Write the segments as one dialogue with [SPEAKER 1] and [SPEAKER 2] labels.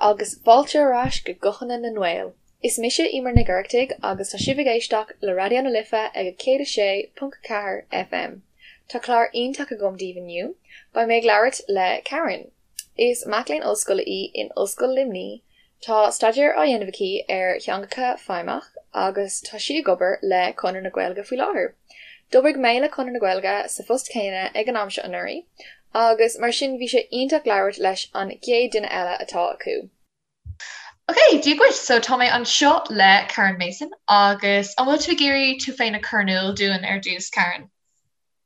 [SPEAKER 1] agus fáilte ar ais go Guthanna na nGael. Is mise Eimear Nic Oireachtaigh agus tá sibh ag éisteacht le Raidió na Life ag 106.4 FM. Tá clár iontach agam daoibh inniu. Beidh mé ag labhairt le Karen. Is mac léinn ollscoile í in Ollscoil Luimnigh. Tá staidéar á dhéanamh aici ar theangacha feidhmeach agus tá sí ag obair le Conradh na Gaeilge faoi láthair. D'oibrigh mé le Conradh na Gaeilge sa phost céanna ag an am seo anuraidh agus mar sin bhí sé iontach labhairt leis an gcéad duine eile atá acu. Ok, Dia dhuit! So tá mé anseo le Karen Mason agus an bhfuil tú ag iarraidh tú féin a chur in iúl dúinn ar dtús, Karen?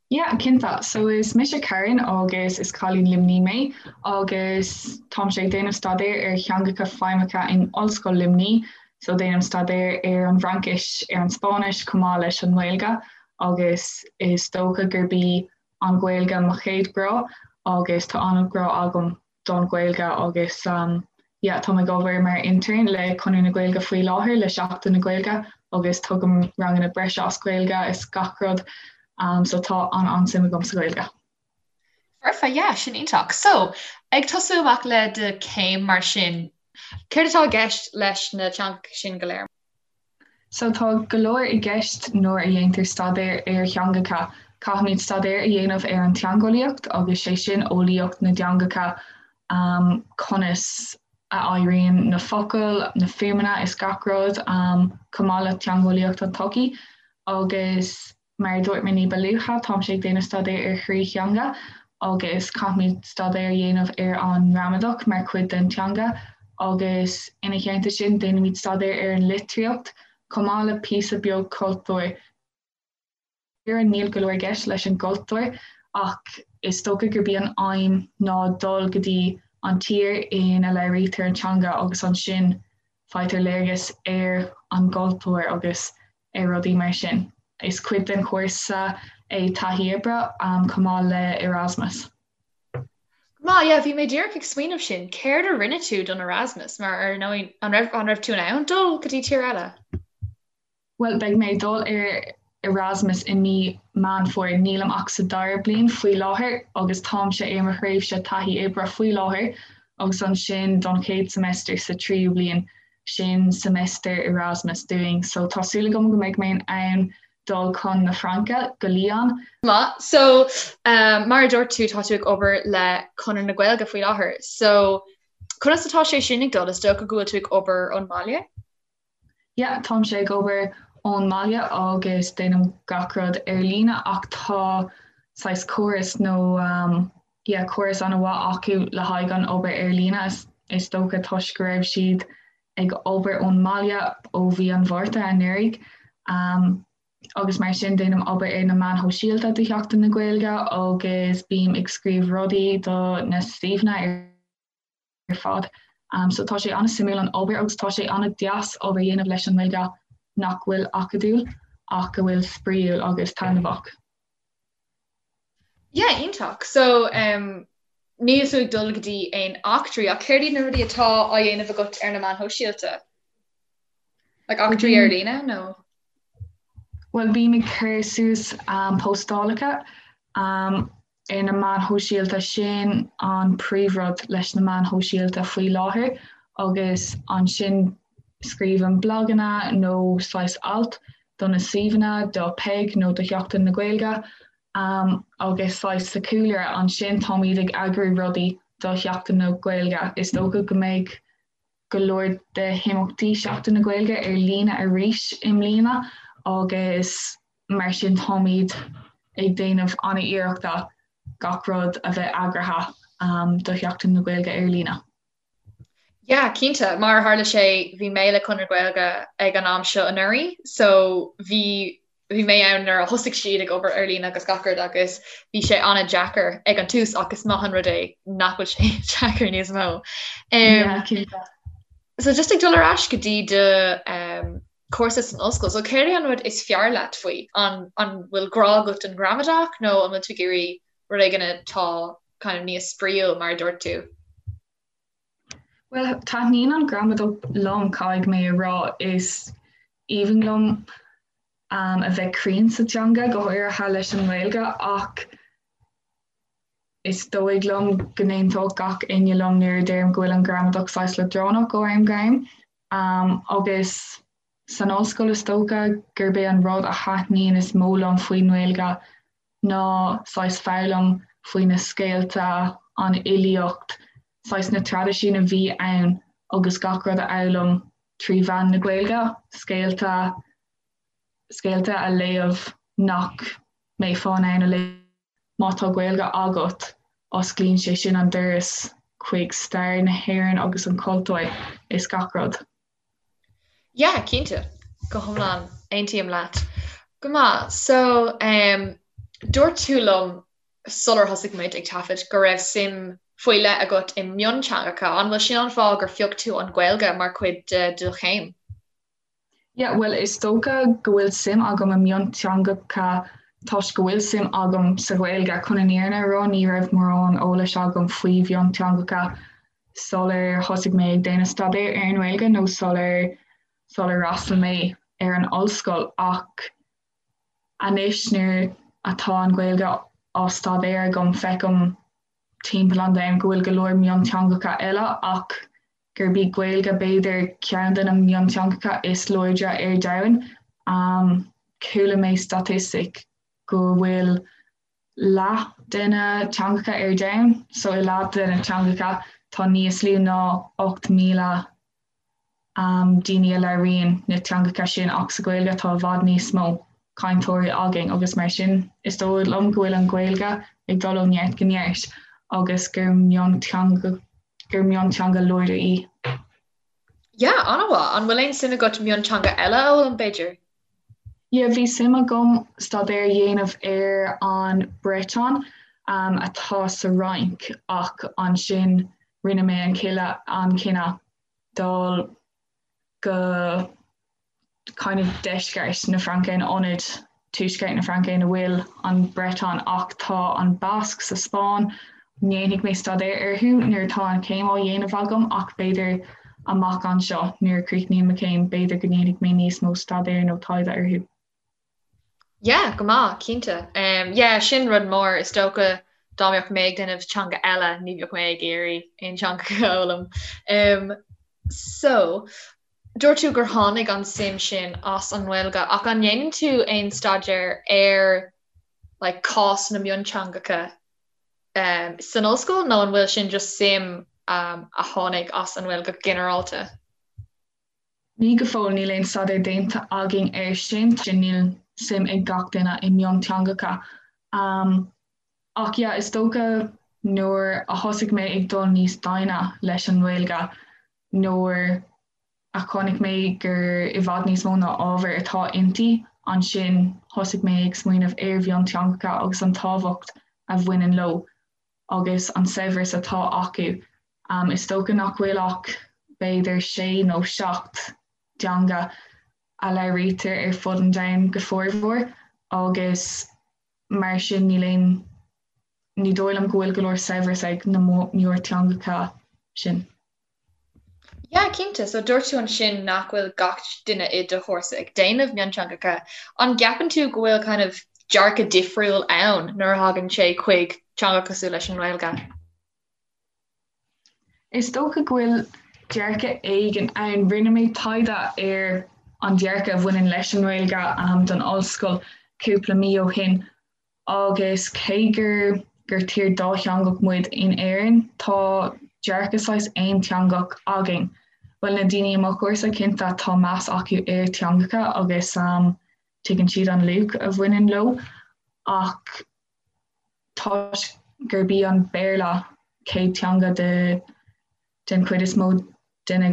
[SPEAKER 2] Yeah, cinnte. So is mise Karen agus is cailín Luimnigh mé agus táimse ag déanamh staidéar ar theangacha feidhmeacha in Ollscoil Luimnigh. So déanaim staidéar ar an bhFraincis, ar an Spáinnis chomh maith leis an nGaeilge agus is dócha gurb í an Ghaeilge mo chéad ghrá agus tá an-ghrá agam don Ghaeilge agus yeah táim ag obair mar intern le Conradh na Gaeilge faoi láthair le Seachtain na Gaeilge agus tugaim ranganna breise as Gaeilge is gach rud um, so tá an an-suim agam sa Ghaeilge.
[SPEAKER 1] Foirfe, yeah, sin iontach. So, ag tosú amach le do chéim mar sin, céard atá i gceist leis na teangacha sin go léir?
[SPEAKER 2] So tá go leor i gceist nuair a dhéantar staidéar ar theangacha. Caithfimid staidéar a dhéanamh ar an teangeolaíocht agus sé sin eolaíocht na dteangacha, conas a éiríonn na focail, na fuaimeanna is gach rud, chomh maith le teangeolaíocht an tsochaí agus Mar a dúirt mé ní ba luaithe, táimse ag déanamh staidéar ar thrí theanga agus caithfimid staidéar a dhéanamh ar an ngramadach mar chuid den teanga agus ina theannta sin déanaimid staidéar ar an litríocht chomh maith le píosa beag cultúir. Níl go leor i gceist leis an gcultúr ach is dócha gurb í an aidhm ná dul go dtí an tír ina labhraítear an teanga agus ansin faightear léargas ar an gcultúr agus ar rudaí mar sin. Is cuid den chúrsa é taithí oibre chomh maith le Erasmus.
[SPEAKER 1] Go maith, yeah, bhí mé díreach ag smaoineamh sin, céard a rinne tú don Erasmus mar ar ndóigh an raibh an raibh tú in ann dul go dtí tír eile?
[SPEAKER 2] Bhuel, beidh mé ag dul ar Erasmus i mí Meán Fómhair. Nílim ach sa dara bliain faoi láthair agus táimse ar mo thréimhse taithí oibre faoi láthair agus ansin don chéad semester sa tríú bliain, sin semester Erasmus dúinn. So tá súil agam go mbeidh mé in ann dul chun na Fraince, go Lyon.
[SPEAKER 1] Maith. So, mar a dúirt tú, tá tú ag obair le Conradh na Gaeilge faoi láthair. So, conas atá sé sin ag dul? Is dócha go bhfuil tú ag obair ón mbaile?
[SPEAKER 2] Yeah, táimse ag obair ón mbaile agus déanaim gach rud ar líne ach tá saghas córas nó um, yeah, córas an-mhaith acu le haghaidh an obair ar líne is, is dócha toisc go raibh siad ag obair ón mbaile ó mhí an Mhárta anuraidh. Um, agus mar sin déanaim obair ar na meáin shóisialta do Sheachtain na Gaeilge agus bím ag scríobh rudaí do na suíomhanna ar ar fad. So tá sé an-suimiúil an obair agus tá sé an-deas obair a dhéanamh leis an nGaeilge nach bhfuil acadúil ach go bhfuil spraíúil agus taitneamhach.
[SPEAKER 1] Yeah, iontach. So um, níl tú ag dul go dtí aon eachtraí ach céard iad na rudaí atá á dhéanamh agat ar na meáin shóisialta? Like eachtraí ar líne nó?
[SPEAKER 2] Bhuel bím ag cur suas um, postálacha um, ar na meáin shóisialta, sin an príomhrud leis na meáin shóisialta faoi láthair agus ansin scríobhaim blaganna nó saghas alt do na suíomhanna, do Peig nó do Sheachtain na Gaeilge agus saghas sa chúlra ansin táimid ag eagrú rudaí do Sheachtain na Gaeilge. Is dócha go mbeidh go leor de himeachtaí Sheachtain na Gaeilge ar líne arís i mbliana agus mar sin táimid ag déanamh an-iarrachta gach rud a bheith eagraithe do Sheachtain na Gaeilge ar líne.
[SPEAKER 1] Yeah, cinnte. Mar a tharla sé, bhí mé le Conradh na Gaeilge ag an am seo anuraidh, so bhí bhí mé ann nuair a thosaigh siad ag obair ar líne agus gach rud agus bhí sé an-deacair ag an tús ach is maith an rud é nach bhfuil sé deacair níos mó. Um, yeah, so just ag dul ar ais go dtí do um, cúrsa san ollscoil, so céard é an rud is fearr leat faoi? An, an bhfuil grá agat don ghramadach nó an bhfuil tú ag iarraidh rud éigin atá kind of níos spraíúil mar a dúirt tú?
[SPEAKER 2] Bhuel, taitníonn an ghramadach liom, caithfidh mé a rá. Is aoibhinn liom a bheith cruinn sa teanga, go háirithe leis an nGaeilge, ach. Is dóigh liom go n-aontódh gach éinne liom nuair a deirim go bhfuil an ghramadach saghas leadránach ó am go ham. Agus san ollscoil is dócha gurb é an rud a thaitníonn is mó liom faoin nGaeilge ná saghas foghlaim faoi na scéalta, an fhilíocht, saghas na traidisiúin a bhí ann agus gach rud a fhoghlaim trí mheán na Gaeilge, scéalta, scéalta a léamh nach mbeifeá in ann a léamh. Má tá Gaeilge agat, osclaíonn sé sin an doras chuig stair na hÉireann agus an cultúr is gach rud.
[SPEAKER 1] Yeah, cinnte. Go hiomlán, aontaím leat. Go maith. So, um, dúirt tú liom sular thosaigh muid ag taifead go raibh suim faoi leith agat i mionteangacha. An bhfuil sin an fáth gur phioc tú an Ghaeilge mar chuid de do chéim?
[SPEAKER 2] Yeah, bhuel is dócha go bhfuil suim agam i mionteangacha toisc go bhfuil suim agam sa Ghaeilge. Chun an fhírinne a rá, ní raibh mórán eolais agam faoi mhionteangacha sular thosaigh mé ag déanamh staidéir ar an nGaeilge nó sular sular fhreastail mé ar an ollscoil ach anois nuair atá an Ghaeilge á staidéar agam feicim timpeall an domhain go bhfuil go leor mionteangacha eile ach gurb í Gaeilge b'fhéidir ceann de na mionteangacha is láidre ar domhan. Chuala mé staitistic go bhfuil leath de na teangacha ar domhan, so i leath de na teangacha tá níos lú ná 8,000 daoine a labhraíonn na teangacha sin ach sa Ghaeilge tá i bhfad níos mó cainteoirí againn agus mar sin is dóigh liom go bhfuil an Ghaeilge ag dul ó neart go neart agus gur mionteanga gur mionteanga láidir í.
[SPEAKER 1] Yeah, an-mhaith. An bhfuil aon suim agat mionteanga eile a fhoghlaim, b'fhéidir?
[SPEAKER 2] Yeah, bhí suim agam staidéar a dhéanamh ar an Breton um, atá sa Fhrainc ach ansin rinne mé an an cinneadh dul go kind of deisceart na Fraince in ionad tuaisceart na Fraince ina bhfuil an Breton ach tá an Basque sa Spáinn. Ndéanfaidh mé staidéar orthu nuair atá an chéim á dhéanamh agam ach b'fhéidir amach anseo nuair a chríochnaím mo chéim b'fhéidir go ndéanfaidh mé níos mó staidéir nó taighde orthu.
[SPEAKER 1] Yeah, go maith, cinnte. Um, yeah, sin rud mór, is dócha dá mbeadh mé ag déanamh teanga eile, ní bheadh mé ag iarraidh aon teanga a fhoghlaim. Um, so, dúirt tú gur tháinig an suim sin as an nGaeilge, ach an ndéanann tú aon staidéar ar like, cás na mionteangacha um, san ollscoil nó an bhfuil sin just suim um, a tháinig as an nGaeilge go ginearálta?
[SPEAKER 2] Ní go fóill, níl aon staidéar déanta againn air sin, níl suim ag gach duine i mionteangacha. Ach yeah, is dócha nuair a thosaigh mé ag dul níos doimhne leis an nGaeilge, nuair a chonaic mé gur i bhfad níos mó ná ábhar atá inti, ansin thosaigh mé ag smaoineamh ar mhionteangacha agus an tábhacht a bhaineann leo. agus an saibhreas atá acu. Is dócha nach bhfuil ach b'fhéidir sé nó seacht dteanga a labhraítear ar fud an domhain go formhór agus mar sin níl aon, ní dóigh liom go bhfuil go leor saibhreas ag na mórteangacha sin.
[SPEAKER 1] Yeah, cinnte. So dúirt tú ansin nach bhfuil gach duine i do chúrsa ag déanamh mionteangacha. An gceapann tú go bhfuil kind of dearcadh difriúil ann nuair a thagann sé chuig teanga cosúil leis an nGaeilge?
[SPEAKER 2] Is dócha go bhfuil dearcadh éigin ann. Rinne mé taighde ar an dearcadh a bhaineann leis an nGaeilge um, don ollscoil cúpla mí ó shin Agus cé gur gur tír dátheangach muid in Éirinn, tá dearcadh saghas aonteangach againn. Bhuel, na daoine i mo chúrsa, cinnte, tá meas acu ar teangacha agus tuigeann siad an luach a bhaineann leo, ach toisc gurb í an Béarla céad teanga de den chuid is mó de na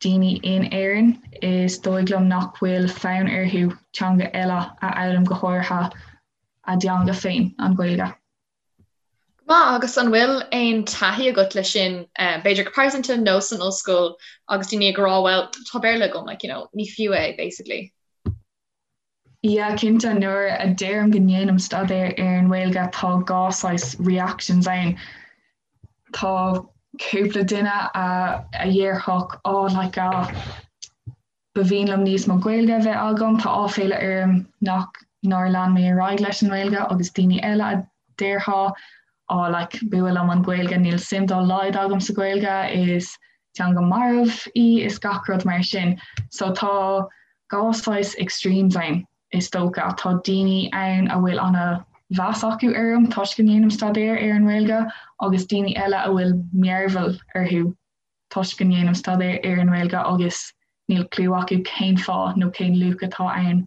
[SPEAKER 2] daoine in Éirinn, is dóigh liom nach bhfuil fonn orthu teanga eile a fhoghlaim, go háirithe a dteanga féin, an Ghaeilge.
[SPEAKER 1] Go maith, agus an bhfuil aon taithí agat leis sin, b'fhéidir go pearsanta nó san ollscoil agus daoine ag rá well, tá Béarla agam, like, you know, ní fiú é, basically.
[SPEAKER 2] Yeah, cinnte, nuair a deirim go ndéanaim staidéar ar an nGaeilge tá dhá saghas reactions ann. Tá cúpla duine a a dhéarfadh oh like ah ba mhian liom níos mó Gaeilge a bheith agam, tá áiféala orm nach nár lean mé ar aghaidh leis an nGaeilge agus daoine eile a déarfadh. Oh like b'fhuath liom an Ghaeilge, níl suim dá laghad agam sa Ghaeilge, is teanga marbh í is gach rud mar sin. So tá dhá saghas extremes ann is dócha. Tá daoine ann a bhfuil ana mheas acu orm toisc go ndéanaim staidéar ar an nGaeilge agus daoine eile a bhfuil mearbhall orthu toisc go ndéanaim staidéar ar an nGaeilge agus níl cliú acu cén fáth nó cén luach atá ann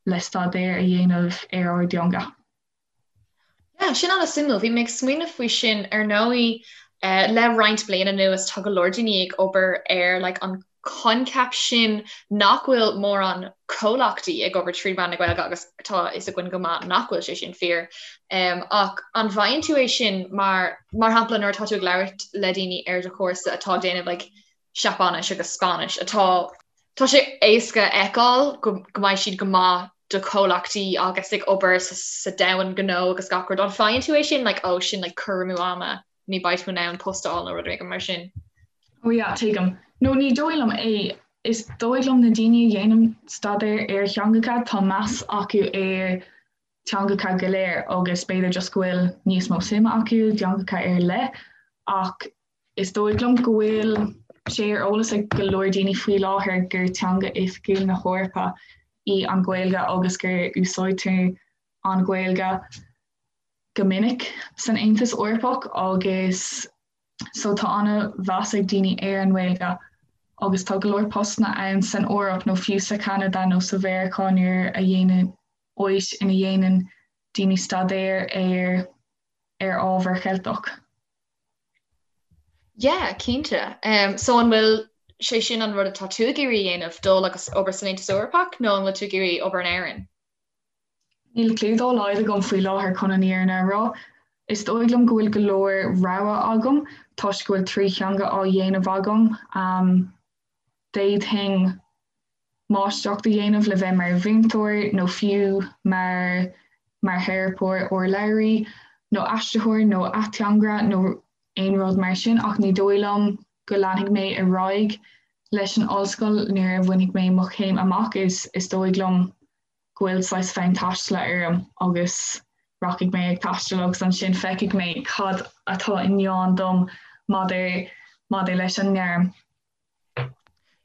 [SPEAKER 2] le staidéar a dhéanamh ar ár dteanga.
[SPEAKER 1] Yeah, sin an-suimiúil. Bhí mé ag smaoineamh faoi sin ar ndóigh eh, le roinnt bliana anuas tá go leor daoine ag obair ar like, an coincheap sin nach bhfuil mórán comhlachtaí ag obair trí mheán na Gaeilge agus tá a fhios againn go maith nach bhfuil sé sin fíor. Um, ach an bhfaigheann tú é sin mar mar shampla nuair atá tú ag labhairt le daoine ar do chúrsa atá ag déanamh like, Seapáinis agus Spáinnis atá Tá sé éasca a fheiceáil go mbeidh siad go maith do chomhlachtaí agus ag obair sa domhan gnó agus gach rud. An faigheann tú é sin like oh sin like cur amú ama, ní beidh tú in ann post a fháil nó rud éigin mar sin?
[SPEAKER 2] Oh yeah, tuigim. No ní dóigh liom é. Is dóigh liom na daoine a dhéanann staidéar ar theangacha tá meas acu ar teangacha go léir agus b'fhéidir just go bhfuil níos mó suime acu i dteangacha ar leith ach is dóigh liom go bhfuil sé ar eolas ag go leor daoine faoi láthair gur teanga oifigiúil na hEorpa í an Ghaeilge agus gur úsáidtear an Ghaeilge go minic san Aontas Eorpach agus so tá an-mheas ag daoine ar an nGaeilge agus tá go leor postanna ann san Eoraip nó fiú sa Cheanada nó sa Mheiriceá nuair a dhéanann áit ina dhéanann daoine staidéar ar ar ábhar Cheilteach.
[SPEAKER 1] Yeah, cinnte. Um, so an bhfuil sé sin an rud atá tú ag iarraidh a dhéanamh, dul agus obair san Aontas Eorpach nó an bhfuil tú ag iarraidh obair in Éirinn?
[SPEAKER 2] Níl cliú dá laghad agam faoi láthair chun an fhírinne a rá. Is dóigh liom go bhfuil go leor rogha agam toisc go bhfuil 3 theanga á dhéanamh agam. Um, D'fhéadfainn máistreacht a dhéanamh le bheith mar mhúinteoir nó fiú mar mar theiripeoir urlabhraí nó aistritheoir nó ateangaire nó aon rud mar sin ach ní dóigh liom go leanfaidh mé ar aghaidh leis an ollscoil nuair a bhainfidh mé mo chéim amach. Is is dóigh liom go bhfuil saghas fonn taistil orm agus rachaidh mé ag taisteal agus ansin feicfidh mé cad atá i ndán dom maidir maidir leis an ngairm.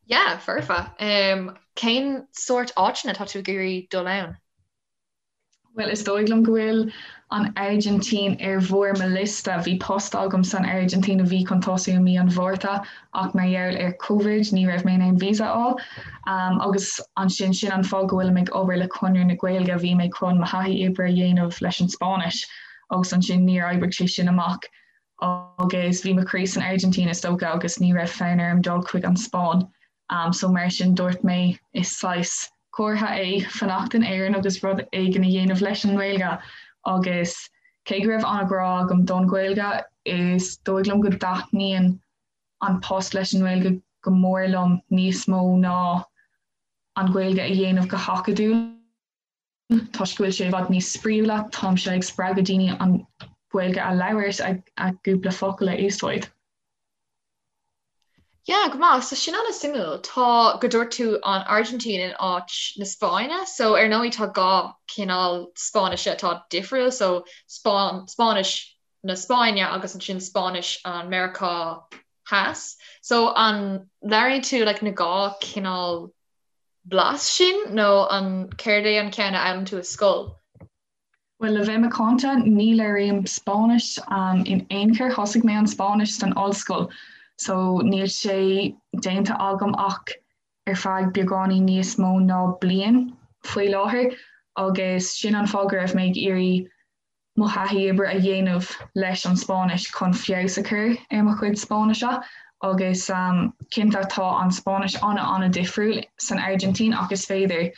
[SPEAKER 1] Yeah, foirfe. Um, cén sórt áiteanna tá tú ag iarraidh dul ann?
[SPEAKER 2] Bhuel, is dóigh liom go bhfuil an Airgintín ar bharr mo liosta. Bhí post agam san Airgintín a bhí chun tosú i mí an Mhárta ach mar gheall ar Covid ní raibh mé in ann visa a fháil. Um, agus ansin sin an fáth go bhfuilim ag obair le Conradh na Gaeilge, bhí mé chun mo thaithí oibre a dhéanamh leis an Spáinnis agus ansin níor oibrigh sé sin amach. agus bhí mo chroí san Airgintín is dócha agus ní raibh fonn orm dul chuig an Spáinn um, so mar sin dúirt mé is saghas comhartha é fanacht in Éirinn agus rud éigin a dhéanamh leis an nGaeilge agus cé go raibh an-ghrá agam don Ghaeilge is dóigh liom go dtaitníonn an post leis an nGaeilge go mór liom níos mó ná an Ghaeilge a dhéanamh go hacadúil. Toisc go bhfuil sé i bhfad níos spraíúla, táimse ag spreagadh daoine an Ghaeilge a labhairt, a gcúpla focal a úsáid.
[SPEAKER 1] Yeah, go maith. So sin an-suimiúil. Tá, go dúirt tú an Airgintín in áit na Spáinne. So ar ndóigh tá dhá chineál Spáinnise atá difriúil, so Spáinnis na Spáinne agus ansin Spáinnis an Meiriceá Theas. So an labhraíonn tú like na dhá chineál blas sin nó an céard é an ceann a fhoghlaim tú i scoil?
[SPEAKER 2] Bhuel, le bheith macánta, ní labhraím Spáinnis in aon chor. Thosaigh mé an Spáinnis san ollscoil so níl sé déanta agam ach ar feadh beagáinín níos mó ná bliain faoi láthair agus sin an fáth go raibh mé ag iarraidh mo thaithí oibre a dhéanamh leis an Spáinnis chun feabhas a chur ar mo chuid Spáinnise agus cinnte tá an Spáinnis an-an-difriúil san Airgintín ach is féidir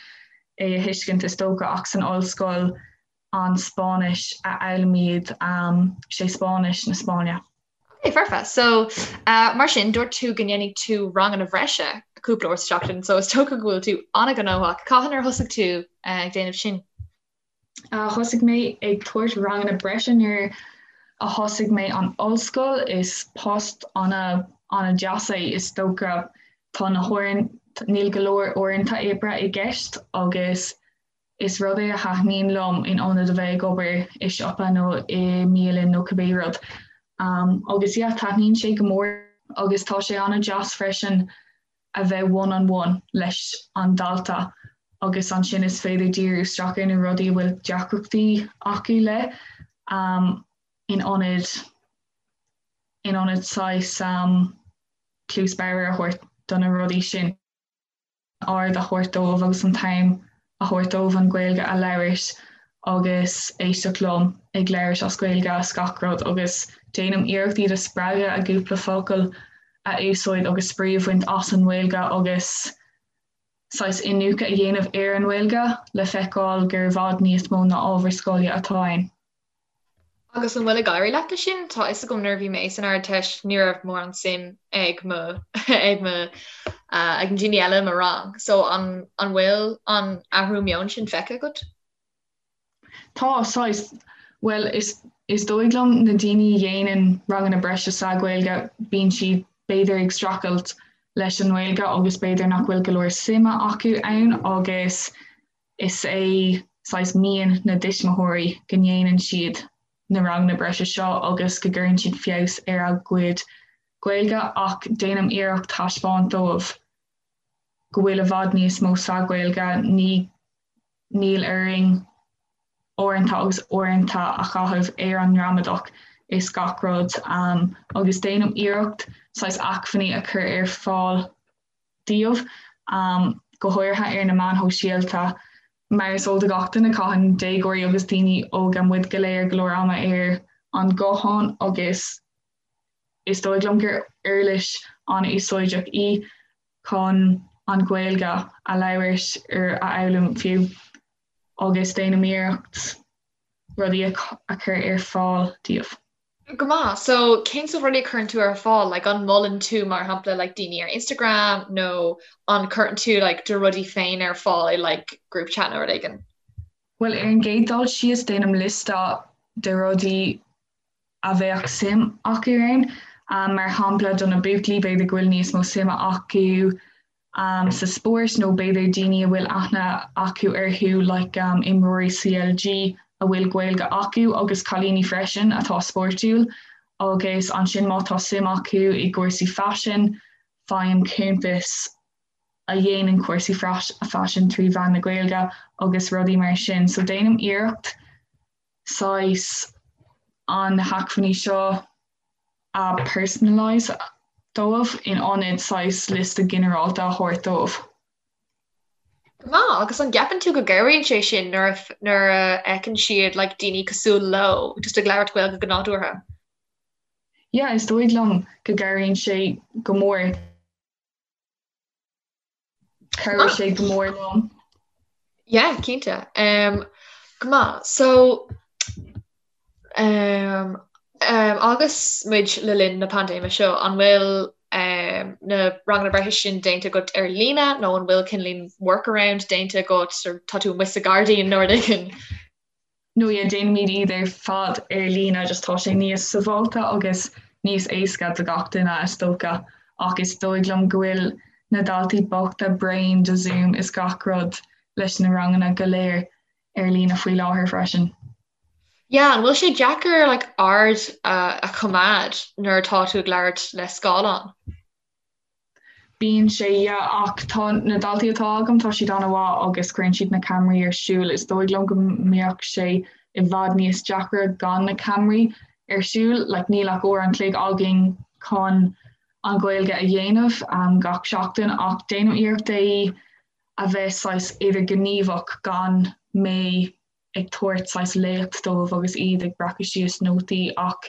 [SPEAKER 2] é a thuiscint is dócha ach san ollscoil an Spáinnis a fhoghlaimíd sé Spáinnis na Spáinne.
[SPEAKER 1] Ok, foirfe. So, uh, mar sin, dúirt tú go ndéanfaidh tú ranganna bhreise cúpla uair sa tseachtain, so is dócha go bhfuil tú an-ghnóthach. Cathain ar thosaigh tú uh, ag déanamh sin?
[SPEAKER 2] Thosaigh mé ag tabhairt ranganna breise nuair a thosaigh mé an ollscoil. Is post an-deas é is dócha. Tá na huaireanta, níl go leor uaireanta oibre i gceist agus Is rud é a thaitníonn liom in ionad a bheith ag obair i siopa nó i mbialann nó cibé rud. Agus yeah, taitníonn sé go mór agus tá sé an-deas freisin a bheith one on one leis an dalta agus ansin is féidir díriú isteach ar na rudaí a bhfuil deacrachtaí acu le in ionad in ionad saghas cluas bodhar a thabhairt do na rudaí sin. aird a thabhairt dóibh agus an t-am a thabhairt dóibh an Ghaeilge a labhairt agus éisteacht liom ag labhairt as Gaeilge is gach rud agus déanaim iarracht iad a spreagadh a gcúpla focal a úsáid agus spraoi a bhaint as an nGaeilge agus saghas iniúchadh a dhéanamh ar an nGaeilge le feiceáil gur i bhfad níos mó ná ábhar scoile atá ann.
[SPEAKER 1] Agus an bhfuil ag éirí leat leis sin? Tá fhios agam nuair a bhí mé san Ardteist ní raibh mórán suim ag mo ag mo ag na daoine eile i mo rang. So an an bhfuil an athrú meoin sin feicthe agat?
[SPEAKER 2] Tá, saghas. Bhuel is is dóigh liom na daoine a dhéanann ranganna breise sa Ghaeilge bíonn siad b'fhéidir ag streachailt leis an nGaeilge agus b'fhéidir nach bhfuil go leor suime acu ann agus Is é saghas mian na dtuismitheoirí go ndéanann siad na ranganna breise seo agus go gcuireann siad feabhas ar a gcuid Gaeilge ach déanaim iarracht taispeáint dóibh go bhfuil i bhfad níos mó sa Ghaeilge, ní níl orainn uaireanta agus uaireanta a chaitheamh ar an ngramadach is gach rud agus déanaim iarracht saghas acmhainní a chur ar fáil dóibh, go háirithe ar na meáin shóisialta. Mar is eol do gach duine, caitheann déagóirí agus daoine óga, muid go léir, go leor ama ar an nguthán agus is dóigh liom gur uirlis an-úsáideach í chun an Ghaeilge a labhairt or a fhoghlaim fiú agus déanaim iarracht rudaí a chur ar fáil díobh.
[SPEAKER 1] Go maith. So cén sórt rudaí a chuireann tú ar fáil? Like an molann tú mar shampla like daoine ar Instagram nó an cuireann tú like do rudaí féin ar fáil i like group chat nó rud éigin?
[SPEAKER 2] Bhuel ar an gcéad dul síos déanaim liosta de rudaí a bheadh suim acu ann. Mar shampla do na buachaillí b'fhéidir go bhfuil níos mó suime acu sa spórt nó b'fhéidir daoine a bhfuil aithne acu orthu like imreoirí CLG a bhfuil Gaeilge acu agus cailíní freisin atá spórtúil agus ansin má tá suim acu i gcúrsaí faisin faighim cuntais a dhéanann cúrsaí faisin trí mheán na Gaeilge agus rudaí mar sin. So déanaim iarracht saghas an na hacmhainní seo a personalise dóibh in ionad saghas liosta ginearálta a thabhairt dóibh.
[SPEAKER 1] Go maith, agus an gceapann tú go gcabhraíonn sé sin nuair a nuair a fheiceann siad like daoine cosúil leo just ag labhairt Gaeilge go nádúrtha?
[SPEAKER 2] Yeah, is dóigh liom go gcabhraíonn sé go mór. Chabhraigh sé go mór liom.
[SPEAKER 1] Yeah, cinnte. Um, go maith. So, um, um, agus muid le linn na paindéime seo, an bhfuil um, na ranganna breise sin déanta agat ar líne nó an bhfuil cineáilín workaround déanta agat tá tú amuigh sa gairdín nó rud éigin?
[SPEAKER 2] No yeah, déanaimid iad ar fad ar líne just tá sé níos sábháilte agus níos éasca do gach duine is dócha ach is dóigh liom go bhfuil na daltaí bochta bréan de Zoom is gach rud leis na ranganna go léir ar líne faoi láthair freisin.
[SPEAKER 1] Yeah, an bhfuil sé deacair like aird a choimeád nuair atá tú ag labhairt le scáileán?
[SPEAKER 2] Bíonn sé, yeah, ach tá na daltaí atá agam, tá siad an-mhaith agus cuireann siad na ceamaraí ar siúl. Is dóigh liom go mbeadh sé i bhfad níos deacra gan na ceamaraí ar siúl. Like, níl ach uair an chloig againn chun an Ghaeilge a dhéanamh um, gach seachtain ach déanaim iarracht é a bheith saghas idirghníomhach gan mé ag tabhairt saghas léacht dóibh agus iad ag breacadh síos nótaí ach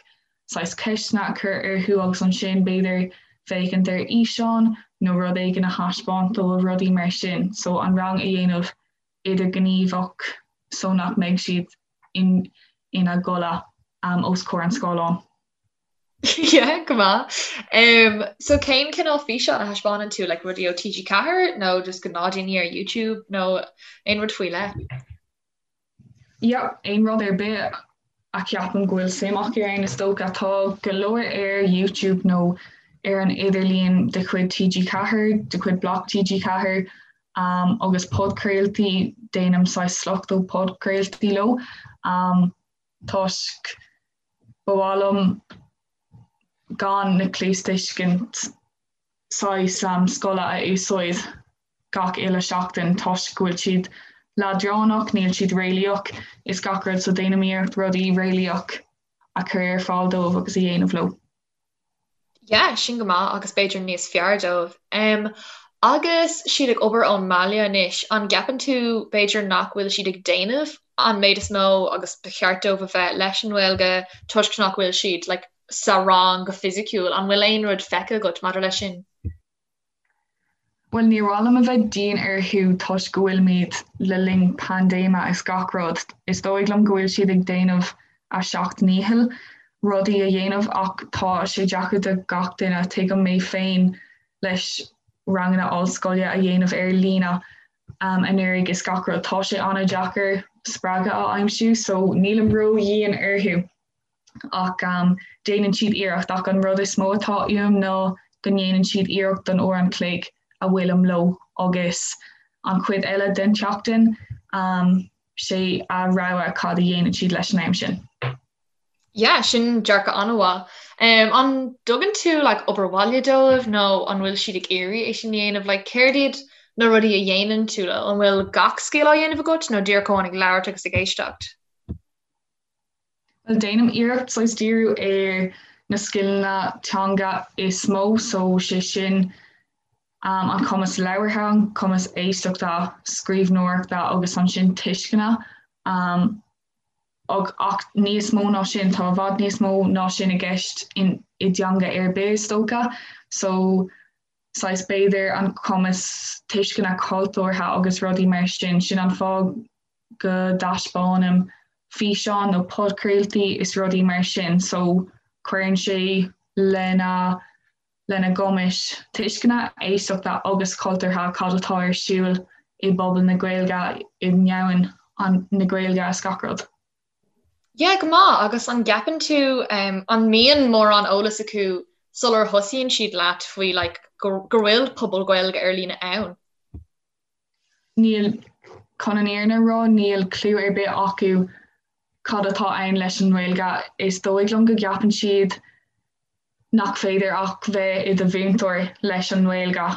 [SPEAKER 2] saghas ceisteanna a chur orthu agus ansin b'fhéidir féachaint ar fhíseán nó rud éigin a thaispeáint dóibh, rudaí mar sin. So an rang a dhéanamh idirghníomhach so nach mbeidh siad in ina gcodladh um, os comhair an scáileáin.
[SPEAKER 1] Yeah, go maith. Um, so cén cineál físeán a thaispeánann tú, like rudaí ó TG4 nó just gnáthdhaoine ar YouTube nó aon rud faoi leith?
[SPEAKER 2] Yeah, aon rud ar bith a cheapaim go bhfuil suim acu ann is dócha. Tá go leor ar YouTube nó ar an idirlíon de chuid TG4, de chuid Bloc TG4. Agus podchraoltaí, déanaim saghas sliocht ó podchraoltaí leo toisc ba mhaith liom gan na cluastuiscint saghas scoile a úsáid gach uile seachtain toisc go bhfuil siad leadránach, níl siad réalaíoch is gach rud so déanaim iarracht rudaí réalaíoch a chur ar fáil dóibh agus a dhéanamh leo.
[SPEAKER 1] Yeah, sin go maith agus b'fhéidir níos fearr dóibh. Um, agus siad ag obair ón mbaile anois, an gceapann tú b'fhéidir nach bhfuil siad ag déanamh an méid is mó agus ba cheart dóibh a bheith leis an nGaeilge toisc nach bhfuil siad like, sa rang go fisiciúil? An bhfuil aon rud feicthe agat maidir leis sin?
[SPEAKER 2] Bhuel, níor mhaith liom a bheith dian orthu toisc go bhfuilimid le linn paindéime is gach rud. Is dóigh liom go bhfuil siad ag déanamh a seacht ndícheall rudaí a dhéanamh ach tá sé deacair do gach duine. Tuigim mé féin leis ranganna ollscoile a dhéanamh ar líne anuraidh is gach rud. Tá sé an-deacair spreagadh a aimsiú so nílim ró-dhian orthu. ach déanann siad iarracht ach an rud is mó atá uaim ná go ndéanann siad iarracht don uair an chloig a bhfuilim leo agus an chuid eile den tseachtain sé a rogha cad a dhéanann siad leis an am sin.
[SPEAKER 1] Yeah, sin dearcadh an-mhaith. Um, an dtugann tú like, obair bhaile dóibh nó an bhfuil siad ag iarraidh é sin a dhéanamh? Like, céard iad na rudaí a dhéanann tú leo? An bhfuil gach scil á dhéanamh agat nó díreach amháin ag labhairt agus ag éisteacht?
[SPEAKER 2] Bhuel, déanaim iarracht saghas díriú ar na scileanna teanga is mó, so sé sin an cumas labhartha, an cumas éisteachta, scríbhneoireachta agus ansin tuisceana. Ach níos mó ná sin, tá i bhfad níos mó ná sin i gceist i dteanga ar bith is dócha, so saghas b'fhéidir an cumas tuisceana cultúrtha agus rudaí mar sin, sin an fáth go dtaispeánaim físeáin nó podchraoltaí is rudaí mar sin so cuireann sé lena lena gcumais tuisceana, éisteachta agus cultúrtha cad atá ar siúl i bpobal na Gaeilge, i ndomhan na Gaeilge is gach rud.
[SPEAKER 1] Yeah, go maith, agus an gceapann tú um, an mbíonn mórán eolas acu sular thosaíonn siad leat faoi like, go, go bhfuil pobal Gaeilge ar líne ann?
[SPEAKER 2] Níl, chun an fhírinne a rá, níl cliú ar bith acu cad atá ann leis an nGaeilge. Is dóigh liom go gceapann siad nach féidir ach bheith i do mhúinteoir leis an nGaeilge.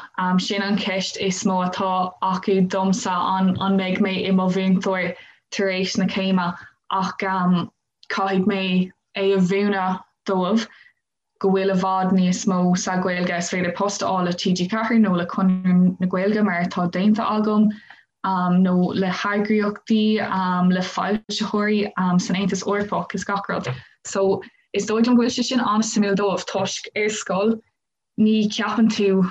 [SPEAKER 2] Sin an cheist is mó atá acu domsa, an an mbeidh mé i mo mhúinteoir tar éis na céime? Ach caithfidh mé é a mhúineadh dóibh. go bhfuil i bhfad níos mó sa Ghaeilge, is féidir post a fháil le TG4 nó le Conradh na Gaeilge mar atá déanta agam, nó le heagraíochtaí, le foilsitheoirí san Aontas Eorpach is gach rud. So is dóigh liom go bhfuil sé sin an-suimiúil dóibh toisc ar scoil ní cheapann tú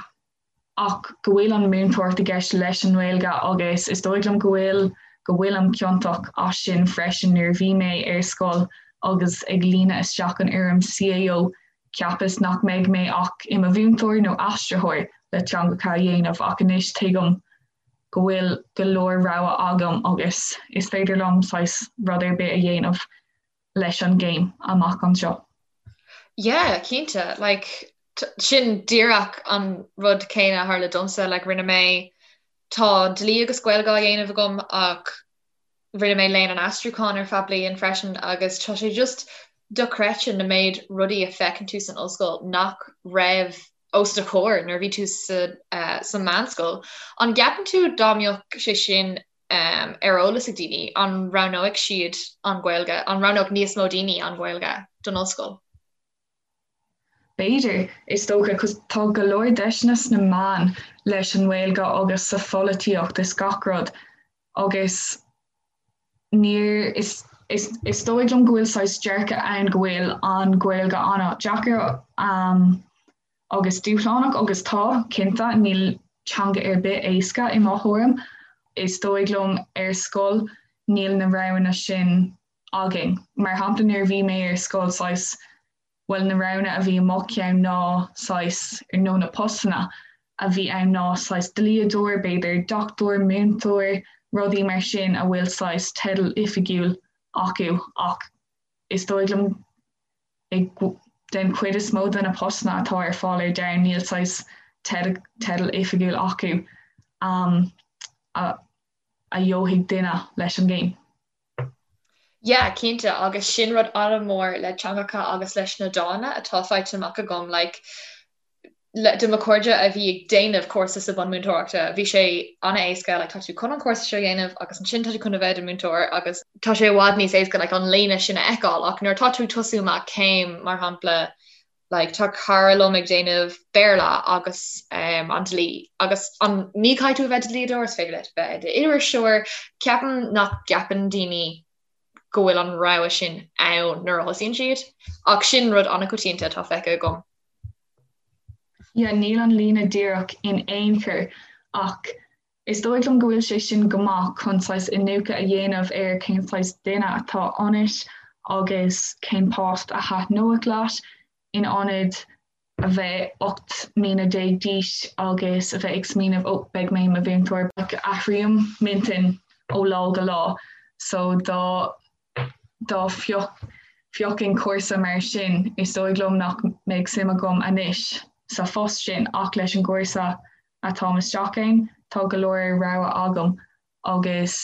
[SPEAKER 2] ach go bhfuil an múinteoireacht i gceist leis an nGaeilge agus is dóigh liom go bhfuil go bhfuilim ciontach as sin freisin nuair a bhí mé ar scoil agus ag líonadh isteach an fhoirm CAO cheapas nach mbeidh mé ach i mo mhúinteoir nó aistritheoir le teangacha a dhéanamh ach anois tuigim go bhfuil go leor rogha agam agus is féidir liom saghas rud ar bith a dhéanamh leis an gcéim amach anseo.
[SPEAKER 1] Yeah, cinnte. Like, sin díreach an rud céanna a tharla domsa. Like, rinne mé, tá dlí agus Gaeilge á dhéanamh agam ach rinne mé léann an aistriúcháin ar feadh bliain freisin agus tá sé just dochreidte na méid rudaí a feiceann tú san ollscoil nach raibh os do chomhair nuair a bhí tú sa, uh, sa meánscoil. An gceapann tú dá mbeadh sé sin ar eolas ag daoine, an roghnóidh siad an Ghaeilge, an roghnódh níos mó daoine an Ghaeilge don ollscoil?
[SPEAKER 2] B'fhéidir, is dócha, 'cause tá go leor deiseanna sna meáin leis an nGaeilge agus sa pholaitíocht is gach rud agus níor, is, is, is dóigh liom go bhfuil saghas dearcadh ann go bhfuil an Ghaeilge an-deacair agus dúshlánach agus tá, cinnte, níl teanga ar bith éasca i mo thuairim. Is dóigh liom ar scoil níl na roghanna sin againn. Mar shampla nuair a bhí mé ar scoil saghas, bhuel na roghanna a bhí i mo cheann ná saghas, nó na postanna a bhí ann ná saghas dlíodóir, b'fhéidir dochtúir, múinteoir, rudaí mar sin a bhfuil saghas teideal oifigiúil acu ach is dóigh liom Den chuid is mó de na postanna atá ar fáil ar domhan níl saghas teideal oifigiúil acu. a a gheobhaidh duine leis an gcéim.
[SPEAKER 1] Yeah, cinnte, agus sin rud an-mhór le teangacha agus leis na dána atá faighte amach agam, like, le, do mo chairde a bhí ag déanamh cúrsa sa bunmúinteoireachta, bhí sé an-éasca, like, tá tú chun an cúrsa seo a dhéanamh agus ansin tá tú chun a bheith i do mhúinteoir agus tá sé i bhfad níos éasca, like, an líne sin a fheiceáil ach nuair atá tú ag tosú amach céim, mar shampla, like tá cara liom ag déanamh Béarla agus um, an dlí agus an ní caithfidh tú a bheith i do dhlíodóir is féidir leat bheith i d'iriseoir ceapaim nach gceapann daoine go bhfuil an rogha sin ann nuair a thosaíonn siad ach sin rud an-choitianta atá feicthe agam.
[SPEAKER 2] Yeah, níl an líne díreach in aon chor ach is dóigh liom go bhfuil sé sin go maith chun saghas iniúchadh a dhéanamh ar cén saghas duine atá ionat agus cén post a thaitneodh leat in ionad a bheith 18 mbliana d'aois agus a bheith ag smaoineamh ó beidh mé i mo mhúinteoir. Athraím m'intinn ó lá go lá so dá dá phiocfainn cúrsa mar sin is dóigh liom nach mbeadh suim agam anois sa phost sin ach leis an gcúrsa atáim isteach ann, tá go leor rogha agam agus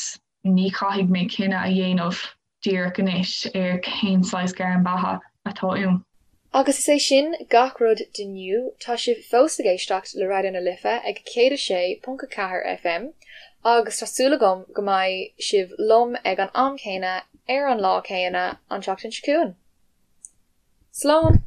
[SPEAKER 2] ní chaithfidh mé cinneadh a dhéanamh díreach anois ar cén saghas gairm beatha atá uaim.
[SPEAKER 1] Agus is é sin gach rud d'inniu, tá sibh fós ag éisteacht le Raidió na Life ag 106.4 FM agus tá súil agam go mbeidh sibh liom ag an am céanna ar an lá céanna an tseachtain seo chugainn. Slán!